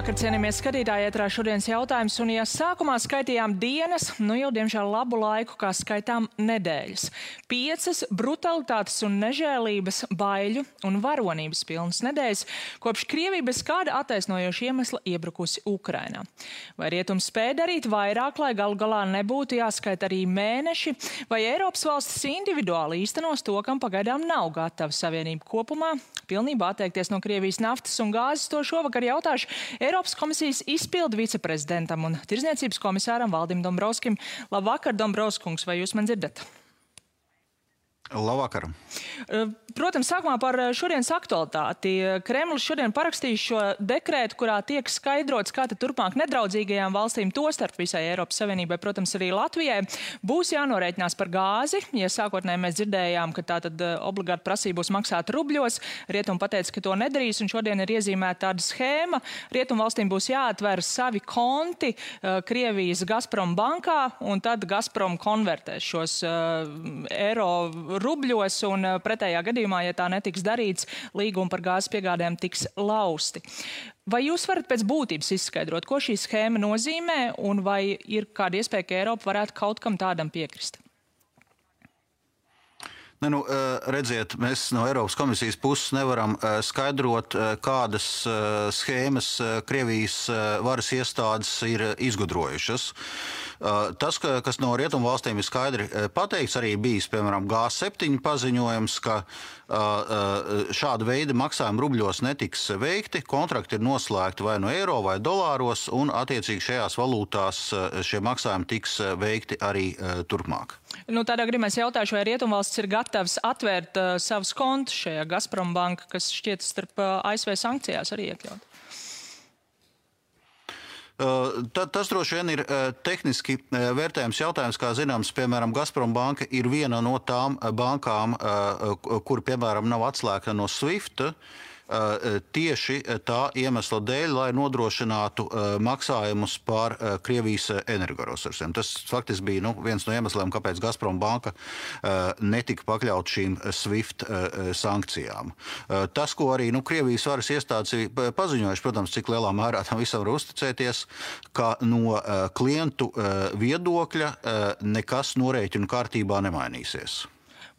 Labvakar, cienījamies skatītāji, ētrā šodienas jautājums, un ja sākumā skaitījām dienas, nu jau diemžēl labu laiku, kā skaitām nedēļas. 5 brutalitātes un nežēlības, baiļu un varonības pilnas nedēļas, kopš Krievija bez kāda attaisnojoša iemesla iebrukusi Ukrainā. Vai rietums spēja darīt vairāk, lai galu galā nebūtu jāskaita arī mēneši, vai Eiropas valstis individuāli īstenos to, kam pagaidām nav gatava savienība kopumā, pilnībā atteikties no Krievijas naftas un gāzes? To šovakar jautāšu Eiropas komisijas izpildu viceprezidentam un tirdzniecības komisāram Valdim Dombrovskim. Labvakar, Dombrovskungs, vai jūs man dzirdat? Labvakar. Protams, sākumā par šodienas aktualitāti. Kremlis šodien parakstīja šo dekrētu, kurā tiek skaidrots, kā tad turpmāk nedraudzīgajām valstīm, tostarp visai Eiropas Savienībai, protams, arī Latvijai, būs jānorēķinās par gāzi. Ja sākotnēji mēs dzirdējām, ka tā tad obligāti prasība būs maksāt rubļos, Rietumi pateica, ka to nedarīs, un šodien ir iezīmēta tāda schēma. Rietumu valstīm būs jāatver savi konti Krievijas Gazprom bankā, un tad Gazprom konvertēs šos eiro rubļos, un pretējā gadījumā, ja tā netiks darīts, līgumi par gāzes piegādēm tiks lausti. Vai jūs varat pēc būtības izskaidrot, ko šī schēma nozīmē, un vai ir kāda iespēja, ka Eiropa varētu kaut kam tādam piekrist? Redziet, mēs no Eiropas komisijas puses nevaram skaidrot, kādas schēmas Krievijas varas iestādes ir izgudrojušas. Tas, kas no rietumu valstīm ir skaidri pateikts, arī bijis, piemēram, G7 paziņojums, ka šāda veida maksājumi rubļos netiks veikti, kontrakti ir noslēgti vai no eiro vai dolāros, un attiecīgi šajās valūtās šie maksājumi tiks veikti arī turpmāk. Tādā gadījumā es jautāšu, vai rietumvalstis ir gatavs atvērt savus kontus šajā Gazprom banka, kas šķiet starp ASV sankcijās arī iekļaut? Tas droši vien ir tehniski vērtējums jautājums, kā zināms, piemēram, Gazprom banka ir viena no tām bankām, kur, piemēram, nav atslēgta no SWIFT, tieši tā iemesla dēļ, lai nodrošinātu maksājumus par Krievijas energoresursiem. Tas faktiski bija viens no iemesliem, kāpēc Gazprom banka netika pakļaut šīm SWIFT sankcijām. Tas, ko arī Krievijas varas iestādes ir paziņojuši, protams, cik lielā mērā tam visam var uzticēties, ka no klientu viedokļa nekas norēķinu kārtībā nemainīsies.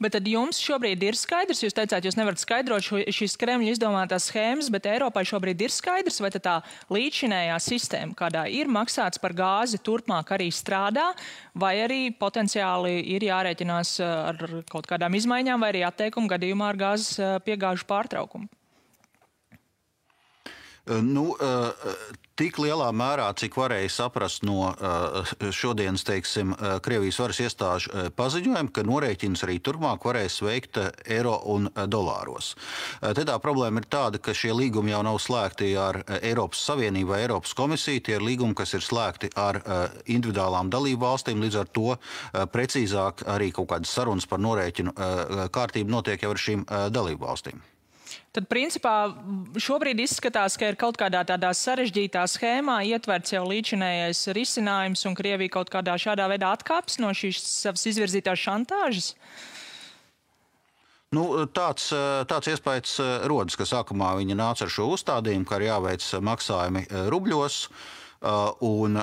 Bet tad jums šobrīd ir skaidrs, jūs teicāt, jūs nevarat skaidrot šīs Kremļa izdomātās schēmas, bet Eiropai šobrīd ir skaidrs, vai tā līdzinējā sistēma, kādā ir maksāts par gāzi, turpmāk arī strādā, vai arī potenciāli ir jārēķinās ar kaut kādām izmaiņām vai arī atteikumu gadījumā ar gāzes piegāžu pārtraukumu? Tik lielā mērā, cik varēja saprast no šodienas, teiksim, Krievijas varas iestāžu paziņojumu, ka norēķins arī turpmāk varēs veikt eiro un dolāros. Te tā problēma ir tāda, ka šie līgumi jau nav slēgti ar Eiropas Savienību vai Eiropas komisiju, tie ir līgumi, kas ir slēgti ar individuālām dalību valstīm, līdz ar to precīzāk arī kaut kādas sarunas par norēķinu kārtību notiek jau ar šīm dalību valstīm. Tad, principā, šobrīd izskatās, ka ir kaut kādā tādā sarežģītā schēmā ietverts jau līdzinējais risinājums, un Krievija kaut kādā šādā veidā atkāpjas no šīs savas izvirzītās šantāžas? Tāds iespējas rodas, ka sākumā viņi nāca ar šo uzstādījumu, ka ir jāveic maksājumi rubļos. Un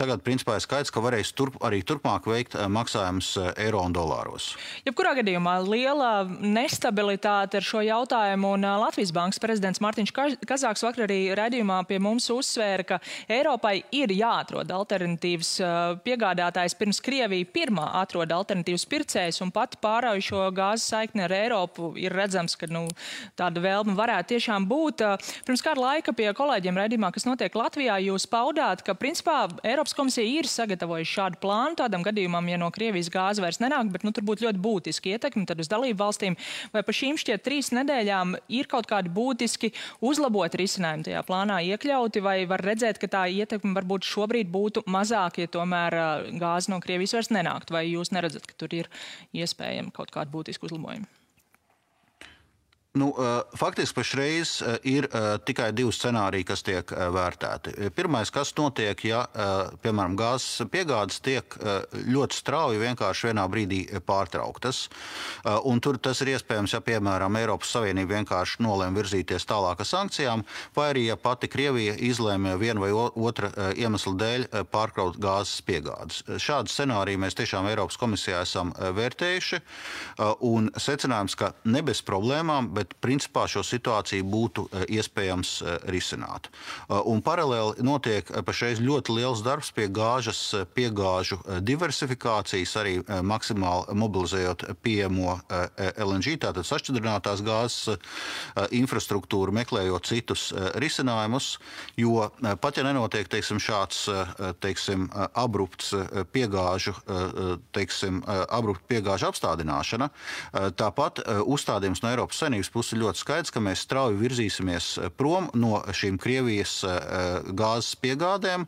tagad, principā, ir skaidrs, ka varēs arī turpmāk veikt maksājumus eiro un dolāros. Jebkurā gadījumā liela nestabilitāte ar šo jautājumu, un Latvijas bankas prezidents Mārtiņš Kazāks vakar arī raidījumā pie mums uzsvēra, ka Eiropai ir jāatrod alternatīvas piegādātājs, pirms Krievija pirmā atrod alternatīvas pircējs, un pat pārauj šo gāzes saikni ar Eiropu ir redzams, ka tāda vēlme varētu tiešām būt. Pirms kāda laika pie kolēģiem raidījumā, kas notiek Latvijā, jūs paudāt, ka, principā, Eiropas komisija ir sagatavojusi šādu plānu tādam gadījumam, ja no Krievijas gāze vairs nenāk, bet tur būtu ļoti būtiski ietekmi tad uz dalību valstīm. Vai pa šīm šķiet 3 nedēļām ir kaut kādi būtiski uzlabot risinājumi tajā plānā iekļauti, vai var redzēt, ka tā ietekme varbūt šobrīd būtu mazāk, ja tomēr gāze no Krievijas vairs nenākt? Vai jūs neredzat, ka tur ir iespējami kaut kādi būtiski uzlabojumi? Faktiski pašreiz ir tikai divi scenāriji, kas tiek vērtēti. Pirmais, kas notiek, ja, piemēram, gāzes piegādes tiek ļoti strauji vienkārši vienā brīdī pārtrauktas. Un tur tas ir iespējams, ja, piemēram, Eiropas Savienība vienkārši nolēma virzīties tālāk ar sankcijām, vai arī, ja pati Krievija izlēma viena vai otra iemesla dēļ pārkraut gāzes piegādes. Šādu scenāriju mēs tiešām Eiropas komisijā esam vērtējuši, un secinājums, ka ne bez problēmām, bet principā šo situāciju būtu iespējams risināt. Un paralēli notiek pašreiz ļoti liels darbs pie piegāžu diversifikācijas, arī maksimāli mobilizējot pieejamo LNG, tātad sašķidrinātās gāzes infrastruktūru, meklējot citus risinājumus, jo pat ja nenotiek, teiksim, šāds, teiksim, abrupts piegāžu apstādināšana, tāpat uzstādījums no Eiropas Savienības puses ir ļoti skaidrs, ka mēs strauji virzīsimies prom no šīm Krievijas gāzes piegādēm,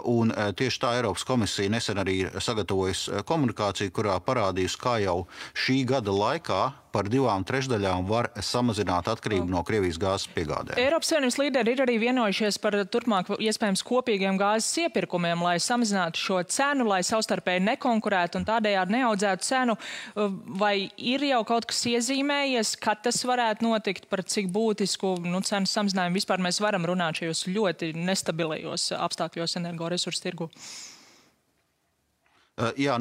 un tieši tā Eiropas komisija nesen arī sagatavojusi komunikāciju, kurā parādījusi, kā jau šī gada laikā par 2/3 var samazināt atkarību no Krievijas gāzes piegādēm. Eiropas Savienības līderi ir arī vienojušies par turpmāk iespējams kopīgiem gāzes iepirkumiem, lai samazinātu šo cenu, lai savstarpēji nekonkurētu un tādējādi neaudzētu cenu. Vai ir jau kaut kas iezīmējies, kad tas varētu notikt, par cik būtisku cenu samazinājumu vispār mēs varam runāt šajos ļoti nestabilajos apstākļos energoresursu tirgu? Jā,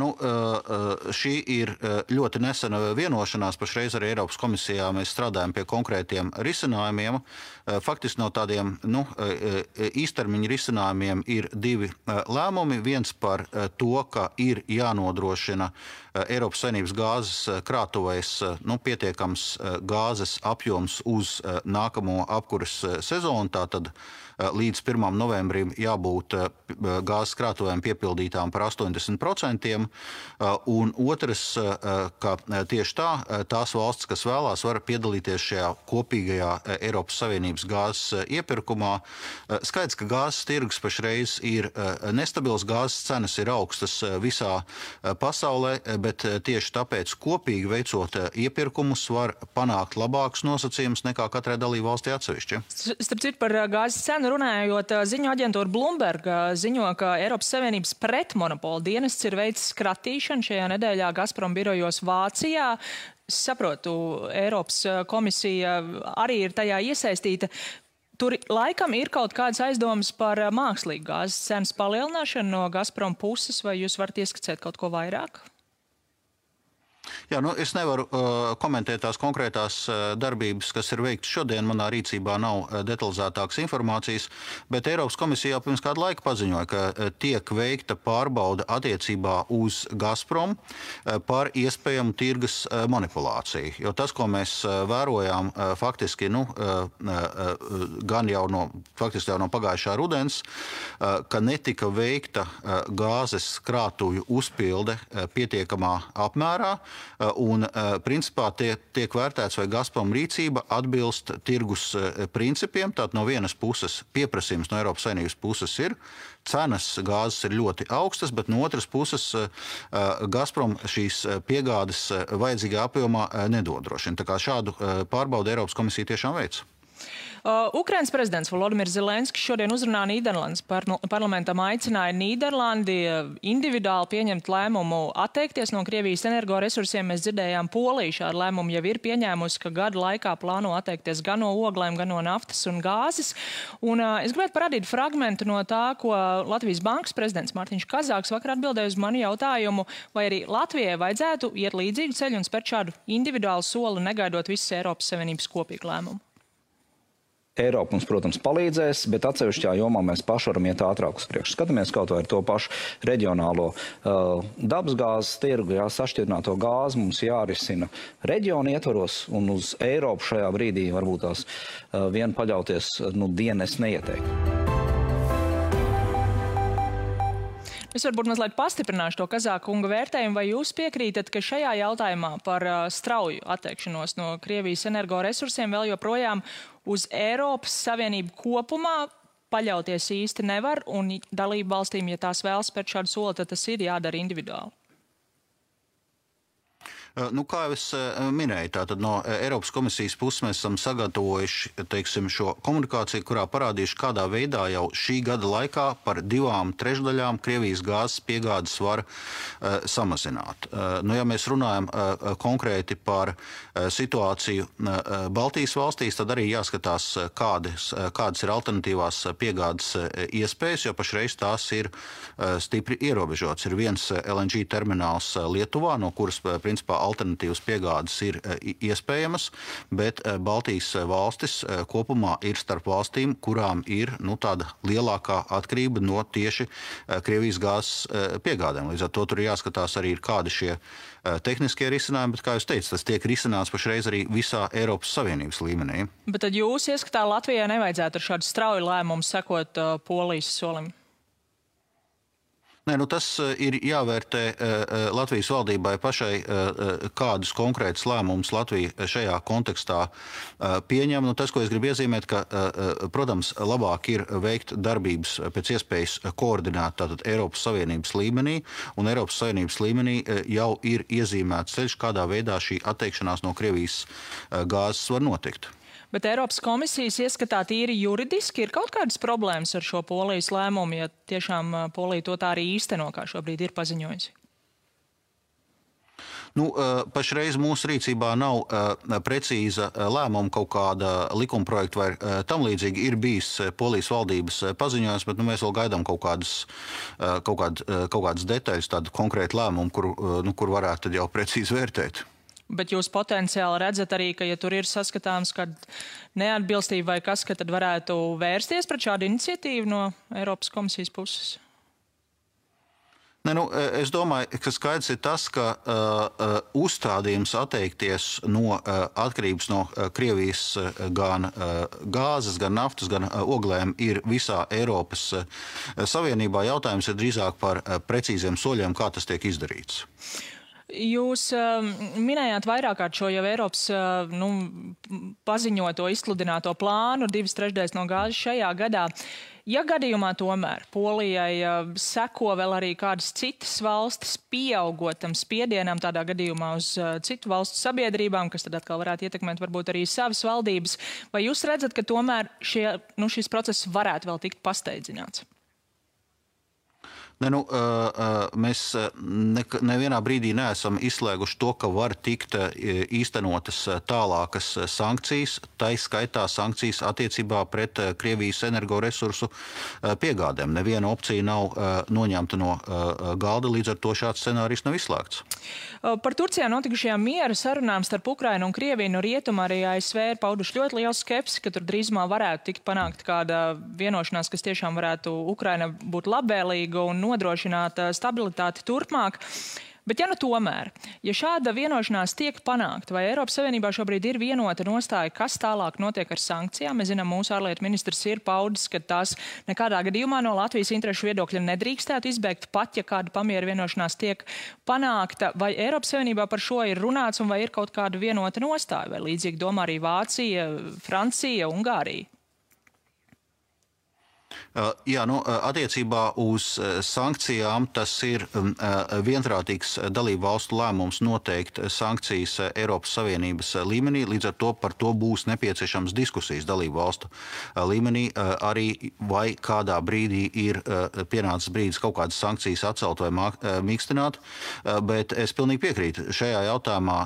šī ir ļoti nesena vienošanās. Pašreiz arī Eiropas komisijā mēs strādājam pie konkrētiem risinājumiem. Faktiski no tādiem īstermiņa risinājumiem ir divi lēmumi. Viens par to, ka ir jānodrošina Eiropas Savienības gāzes krātuvēs pietiekams gāzes apjoms uz nākamo apkuras sezonu. Tātad līdz 1. novembrim jābūt gāzes krātuvēm piepildītām par 80%. Un otrs, ka tieši tās valstis, kas vēlās, var piedalīties šajā kopīgajā Eiropas Savienības gāzes iepirkumā. Skaidrs, ka gāzes tirgus pašreiz ir nestabils, gāzes cenas ir augstas visā pasaulē, bet tieši tāpēc kopīgi veicot iepirkumus var panākt labākus nosacījumus nekā katrai dalību valstī atsevišķi. Starp citu par gāzes cenu runājot, ziņu aģentūra Bloomberg ziņo, ka Eiropas Savienības pretmonopola dienests ir veicis skratīšanu šajā nedēļā Gazprom birojos Vācijā. Saprotu, Eiropas komisija arī ir tajā iesaistīta. Tur laikam ir kaut kādas aizdomas par mākslīgu gāzes cenas palielināšanu no Gazprom puses, vai jūs varat ieskicēt kaut ko vairāk? Jā, es nevaru komentēt tās konkrētās darbības, kas ir veikts šodien. Manā rīcībā nav detalizētākas informācijas, bet Eiropas komisija jau pirms kādu laiku paziņoja, ka tiek veikta pārbauda attiecībā uz Gazprom par iespējamu tirgus manipulāciju. Jo tas, ko mēs vērojām faktiski, gan jau no pagājušā rudens, ka netika veikta gāzes krātuju uzpilde pietiekamā apmērā, un principā tiek vērtēts, vai Gazprom rīcība atbilst tirgus principiem. Tātad no vienas puses pieprasījums no Eiropas Savienības puses ir, cenas gāzes ir ļoti augstas, bet no otras puses Gazprom šīs piegādes vajadzīgā apjomā nedodrošina. Tā kā šādu pārbaudu Eiropas komisija tiešām veic. Ukrainas prezidents Volodimirs Zelenskis šodien uzrunā Nīderlandes parlamentam aicināja Nīderlandi individuāli pieņemt lēmumu atteikties no Krievijas energoresursiem. Mēs dzirdējām, Polija šādu lēmumu jau ir pieņēmusi, ka gada laikā plāno atteikties gan no oglēm, gan no naftas un gāzes. Un es gribētu parādīt fragmentu no tā, ko Latvijas bankas prezidents Mārtiņš Kazāks vakar atbildēja uz manu jautājumu, vai arī Latvijai vajadzētu iet līdzīgu ceļu un spērt šādu individuālu soli, negaidot visas Eiropas Savienības kopīgu lēmumu. Eiropa mums, protams, palīdzēs, bet atsevišķā jomā mēs paši varam iet ātrāk uz priekšu. Skatāmies kaut vai ar to pašu reģionālo dabasgāzes tirgu, sašķidrināto gāzi mums jārisina reģionu ietvaros, un uz Eiropu šajā brīdī varbūt tās vien paļauties dienas neieteiktu. Es varbūt mazliet pastiprināšu to Kazāka kunga vērtējumu, vai jūs piekrītat, ka šajā jautājumā par strauju atteikšanos no Krievijas energoresursiem vēl joprojām uz Eiropas Savienību kopumā paļauties īsti nevar, un dalību valstīm, ja tās vēlas spērt šādu soli, tad tas ir jādara individuāli? Kā jau es minēju, tātad no Eiropas komisijas puses mēs esam sagatavojuši, teiksim, šo komunikāciju, kurā parādījuši, kādā veidā jau šī gada laikā par 2/3 Krievijas gāzes piegādes var samazināt. Ja mēs runājam konkrēti par situāciju Baltijas valstīs, tad arī jāskatās, kādas ir alternatīvās piegādes iespējas, jo pašreiz tās ir stipri ierobežotas. Ir viens LNG termināls Lietuvā, no kuras, principā, alternatīvas piegādes ir iespējamas, bet Baltijas valstis kopumā ir starp valstīm, kurām ir tāda lielākā atkarība no tieši Krievijas gāzes piegādēm. Līdz ar to tur jāskatās arī, kādi šie tehniskie risinājumi, bet, kā jūs teicat, tas tiek risināts pašreiz arī visā Eiropas Savienības līmenī. Bet tad jūs ieskatā Latvijai nevajadzētu ar šādu strauju lēmumu sekot Polijas solim? Nē, tas ir jāvērtē Latvijas valdībai pašai, kādus konkrētus lēmumus Latvija šajā kontekstā pieņem. Tas, ko es gribu iezīmēt, ka, protams, labāk ir veikt darbības pēc iespējas koordinēt tātad Eiropas Savienības līmenī, un Eiropas Savienības līmenī jau ir iezīmēts ceļš, kādā veidā šī atteikšanās no Krievijas gāzes var notikt. Bet Eiropas komisijas ieskatā tīri juridiski ir kaut kādas problēmas ar šo Polijas lēmumu, ja tiešām Polija to tā arī īsteno, kā šobrīd ir paziņojusi? Pašreiz mūsu rīcībā nav precīza lēmuma, kaut kāda likuma projekta vai tam līdzīgi. Ir bijis Polijas valdības paziņojums, bet mēs vēl gaidām kaut kādas detaļas, tādu konkrētu lēmumu, kur varētu tad jau precīzi vērtēt. Bet jūs potenciāli redzat arī, ka, ja tur ir saskatāms kāda neatbilstība vai kas, ka tad varētu vērsties pret šādu iniciatīvu no Eiropas komisijas puses? Es domāju, ka skaidrs ir tas, ka uzstādījums atteikties no atkarības no Krievijas gan gāzes, gan naftas, gan oglēm ir visā Eiropas Savienībā. Jautājums ir drīzāk par precīziem soļiem, kā tas tiek izdarīts. Jūs minējāt vairāk kārt šo jau Eiropas paziņoto, izsludināto plānu 2/3 no gāzes šajā gadā. Ja gadījumā tomēr Polijai seko vēl arī kādas citas valstis, pieaugot tam spiedienam tādā gadījumā uz citu valstu sabiedrībām, kas tad atkal varētu ietekmēt varbūt arī savas valdības, vai jūs redzat, ka tomēr šis process varētu vēl tikt pasteidzināts? Mēs nevienā brīdī neesam izslēguši to, ka var tikt īstenotas tālākas sankcijas, tai skaitā sankcijas attiecībā pret Krievijas energoresursu piegādēm. Neviena opcija nav noņemta no galda, līdz ar to šāds scenārijs nav izslēgts. Par Turcijā notikušajām miera sarunām starp Ukrainu un Krieviju no rietuma arī ASV ir pauduši ļoti lielu skepsi, ka tur drīzumā varētu tikt panākt kāda vienošanās, kas tiešām varētu Ukraina būt labvēlīga un nodrošināt stabilitāti turpmāk. Bet tomēr, ja šāda vienošanās tiek panākta, vai Eiropas Savienībā šobrīd ir vienota nostāja, kas tālāk notiek ar sankcijām? Mēs zinām, mūsu ārlietu ministrs ir paudis, ka tās nekādā gadījumā no Latvijas interešu viedokļa nedrīkstētu izbēgt, pat ja kāda pamiera vienošanās tiek panākta. Vai Eiropas Savienībā par šo ir runāts un vai ir kaut kāda vienota nostāja? Vai līdzīgi domā arī Vācija, Francija, Ungārija? Attiecībā uz sankcijām tas ir vienprātīgs dalību valstu lēmums noteikt sankcijas Eiropas Savienības līmenī, līdz ar to par to būs nepieciešams diskusijas dalību valstu līmenī, arī vai kādā brīdī ir pienācis brīdis kaut kādas sankcijas atcelt vai mīkstināt, bet es pilnīgi piekrītu, šajā jautājumā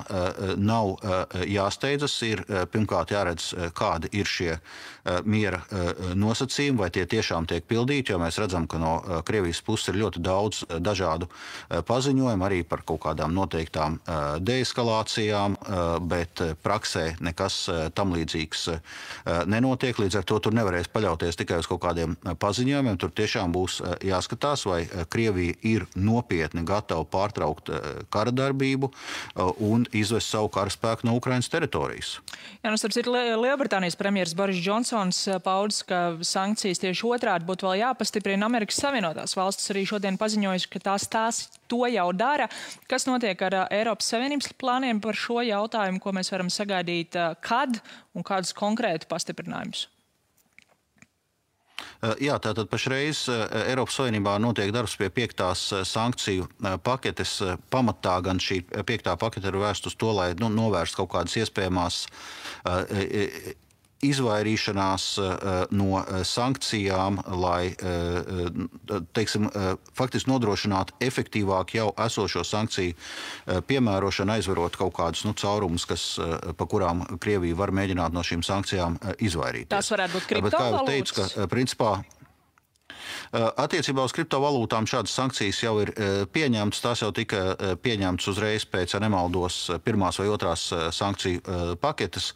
nav jāsteidzas, ir pirmkārt jāredz, kādi ir šie miera nosacījumi, vai tie tiešām tiek pildīti, jo mēs redzam, ka no Krievijas puses ir ļoti daudz dažādu paziņojumu, arī par kaut kādām noteiktām deeskalācijām, bet praksē nekas tam līdzīgs nenotiek. Līdz ar to tur nevarēs paļauties tikai uz kaut kādiem paziņojumiem. Tur tiešām būs jāskatās, vai Krievija ir nopietni gatava pārtraukt kara darbību un izvest savu karaspēku no Ukrainas teritorijas. Starp citu, Lielbritānijas premjeras Boris Džonsons paudis, ka sankcijas tieši otrādi būtu vēl jāpastiprina. Amerikas Savienotās valstis arī šodien paziņojuši, ka tās to jau dara. Kas notiek ar Eiropas Savienības plāniem par šo jautājumu, ko mēs varam sagaidīt, kad un kādus konkrētu pastiprinājumus? Jā, tātad pašreiz Eiropas Savienībā notiek darbs pie 5. sankciju paketes. Pamatā gan šī 5. pakete ir vērsta uz to, lai novērst kaut kādas iespējamās izvairīšanās no sankcijām, lai, teiksim, faktiski nodrošinātu efektīvāk jau esošo sankciju piemērošanu, aizvarot kaut kādus caurumus, pa kurām Krievija var mēģināt no šīm sankcijām izvairīties. Tās varētu būt kriptovalūtas? Bet, kā jau teicu, ka principā attiecībā uz kriptovalūtām šādas sankcijas jau ir pieņemtas. Tās jau tika pieņemtas uzreiz pēc, ja nemaldos, 1. vai 2. sankciju paketes.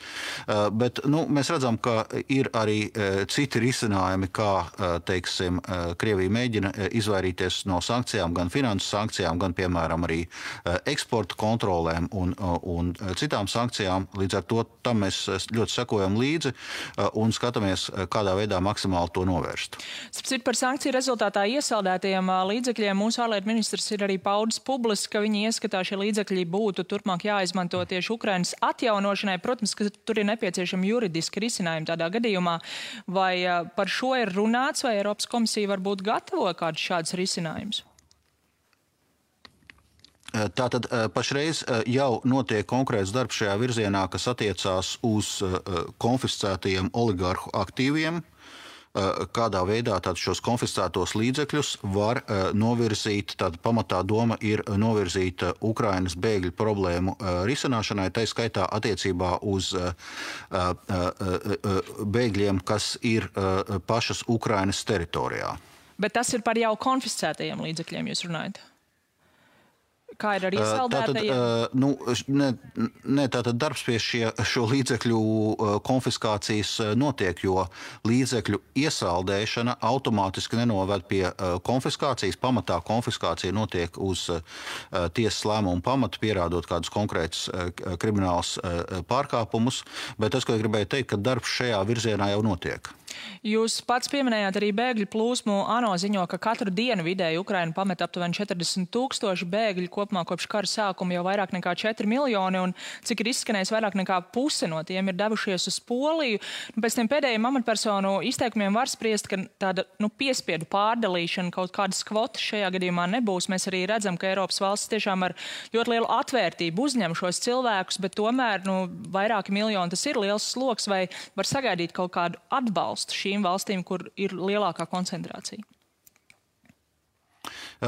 Bet mēs redzam, ka ir arī citi risinājumi, kā, teiksim, Krievija mēģina izvairīties no sankcijām, gan finansu sankcijām, gan, piemēram, arī eksporta kontrolēm un citām sankcijām. Līdz ar to tam mēs ļoti sekojam līdzi un skatāmies, kādā veidā maksimāli to novērst. Par sankciju rezultātā iesaldētajiem līdzekļiem mūsu ārlietu ministrs ir arī paudis publiski, ka viņi ieskatā šie līdzekļi būtu turpmāk jāizmanto tieši Ukrainas atjaunošanai. Protams, ka tur ir nepieciešami juridiski risinājumi tādā gadījumā. Vai par šo ir runāts, vai Eiropas komisija varbūt gatavo kādus šādus risinājumus? Tātad pašreiz jau notiek konkrēts darbs šajā virzienā, kas attiecās uz konfiscētajiem oligarhu aktīviem. Kādā veidā šos konfiscētos līdzekļus var novirzīt, tāda pamatā doma ir novirzīt Ukrainas bēgļu problēmu risināšanai, tai skaitā attiecībā uz bēgļiem, kas ir pašas Ukrainas teritorijā. Bet tas ir par jau konfiscētajiem līdzekļiem, jūs runājat? Kā ir ar iesaldētajiem? Tātad darbs pie šo līdzekļu konfiskācijas notiek, jo līdzekļu iesaldēšana automātiski nenoved pie konfiskācijas. Pamatā konfiskācija notiek uz tiesas lēmumu pamatu, pierādot kādus konkrētus kriminālus pārkāpumus, bet tas, ko gribēju teikt, ka darbs šajā virzienā jau notiek. Jūs pats pieminējāt arī bēgļu plūsmu. ANO ziņo, ka katru dienu vidēji Ukraina pamet aptuveni 40 000 bēgļu, kopumā kopš kara sākuma jau vairāk nekā 4 miljoni, un cik ir izskanējis, vairāk nekā puse no tiem ir devušies uz Poliju. Pēc tiem pēdējiem amatpersonu izteikumiem var spriest, ka tāda piespiedu pārdalīšana, kaut kādas kvotas šajā gadījumā nebūs. Mēs arī redzam, ka Eiropas valsts tiešām ar ļoti lielu atvērtību uzņem šos cilvēkus, bet tomēr vairāki miljoni tas ir liels sloks, vai var sagaidīt kaut kādu atbalstu šīm valstīm, kur ir lielākā koncentrācija?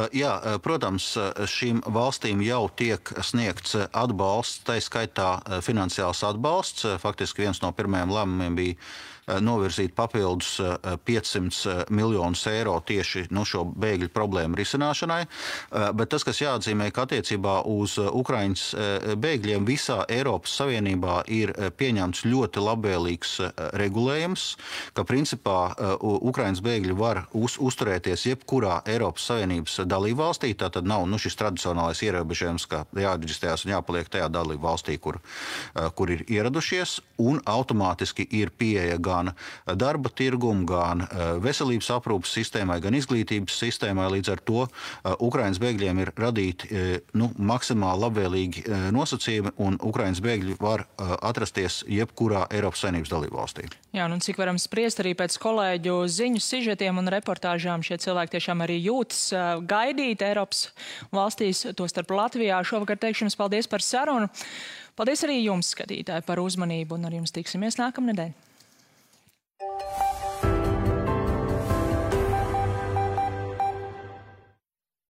Jā, protams, šīm valstīm jau tiek sniegts atbalsts, tai skaitā finansiāls atbalsts. Faktiski viens no pirmajiem lēmumiem bija novirzīt papildus 500 miljonus eiro tieši šo bēgļu problēmu risināšanai. Bet tas, kas jāatzīmē, ka attiecībā uz Ukrainas bēgļiem visā Eiropas Savienībā ir pieņemts ļoti labvēlīgs regulējums, ka principā Ukrainas bēgļi var uzturēties jebkurā Eiropas Savienības dalībvalstī. Tātad nav šis tradicionālais ierobežojums, ka jāreģistrējas un jāpaliek tajā dalībvalstī, kur ir ieradušies, un automātiski ir pieeja gan darba tirgumu, gan veselības aprūpas sistēmai, gan izglītības sistēmai. Līdz ar to Ukrainas bēgļiem ir radīti maksimāli labvēlīgi nosacījumi, un Ukrainas bēgļi var atrasties jebkurā Eiropas Savienības dalībvalstī. Jā, un cik varam spriest arī pēc kolēģu ziņu sižetiem un reportāžām, šie cilvēki tiešām arī jūtas gaidīt Eiropas valstīs, tostarp Latvijā. Šovakar teikšu jums paldies par sarunu. Paldies arī jums, skatītāji, par uzmanību, un ar jums tiksimies nākamnedēļ.